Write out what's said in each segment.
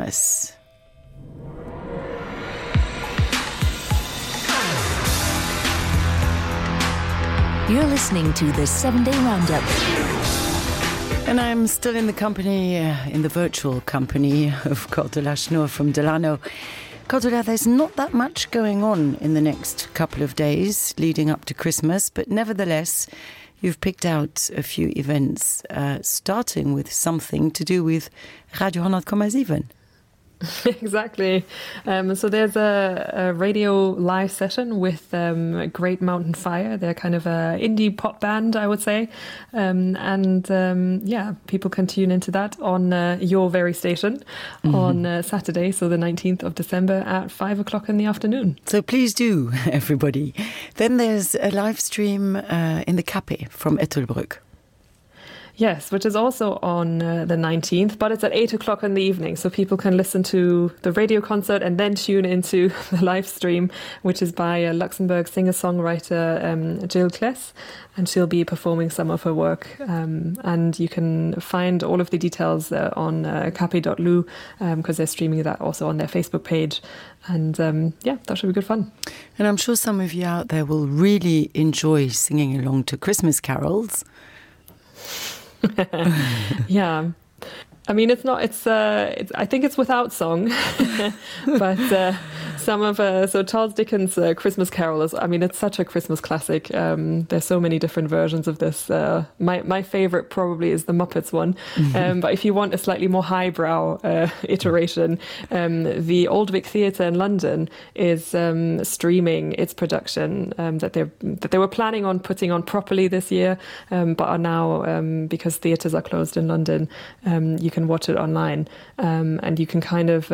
Christmas. You're listening to the 7-Day Roundup. And I'm still in the company, in the virtual company of Cordula Schnur from Delano. Cordula, there's not that much going on in the next couple of days leading up to Christmas, but nevertheless, you've picked out a few events, starting with something to do with Radio 100,7. Exactly. So there's a radio live session with Great Mountain Fire. They're kind of an indie pop band, I would say. People can tune into that on your very station on Saturday, so the 19th of December at 5 o'clock in the afternoon. So please do, everybody. Then there's a live stream in the Café from Ettelbruck. Yes, which is also on the 19th, but it's at 8 o'clock in the evening, so people can listen to the radio concert and then tune into the live stream, which is by a Luxembourg singer-songwriter Jill Kless, and she'll be performing some of her work. And you can find all of the details on capi.lu, because they're streaming that also on their Facebook page. And that should be good fun. And I'm sure some of you out there will really enjoy singing along to Christmas carols. Yeah. I mean, I think it's without song, but so Charles Dickens' Christmas Carol is, I mean, it's such a Christmas classic. There's so many different versions of this. My favorite probably is the Muppets one. But if you want a slightly more highbrow iteration, the Old Vic Theatre in London is streaming its production that they were planning on putting on properly this year, but are now, because theatres are closed in London, you can watch it online, and you can kind of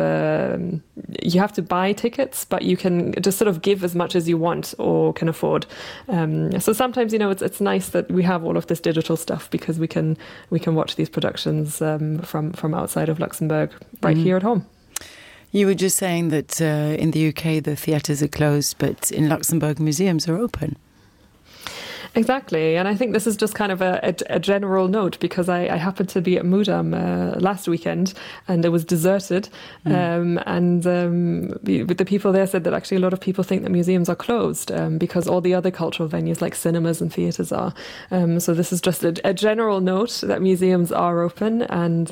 you have to buy tickets, but you can just sort of give as much as you want or can afford. So sometimes, it's nice that we have all of this digital stuff, because we can watch these productions from outside of Luxembourg right here at home. You were just saying that in the UK the theatres are closed, but in Luxembourg museums are open. Exactly, and I think this is just kind of a general note, because I happened to be at Mudam last weekend, and it was deserted, the people there said that actually a lot of people think that museums are closed because all the other cultural venues like cinemas and theatres are. So this is just a general note that museums are open, and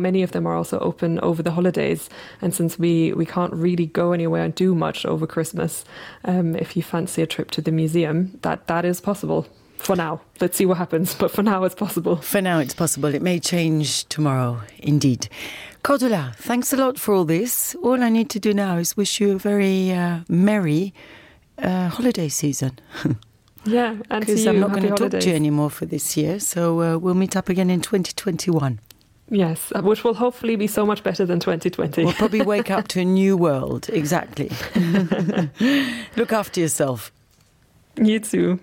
many of them are also open over the holidays. And since we can't really go anywhere and do much over Christmas, if you fancy a trip to the museum, that is possible for now. Let's see what happens, but for now it's possible. For now it's possible. It may change tomorrow, indeed. Cordula, thanks a lot for all this. All I need to do now is wish you a very merry holiday season. Yeah, and because I'm not going to talk to you anymore for this year, so we'll meet up again in 2021. Yes, which will hopefully be so much better than 2020. We'll probably wake up to a new world, exactly. Look after yourself. You too. Bye.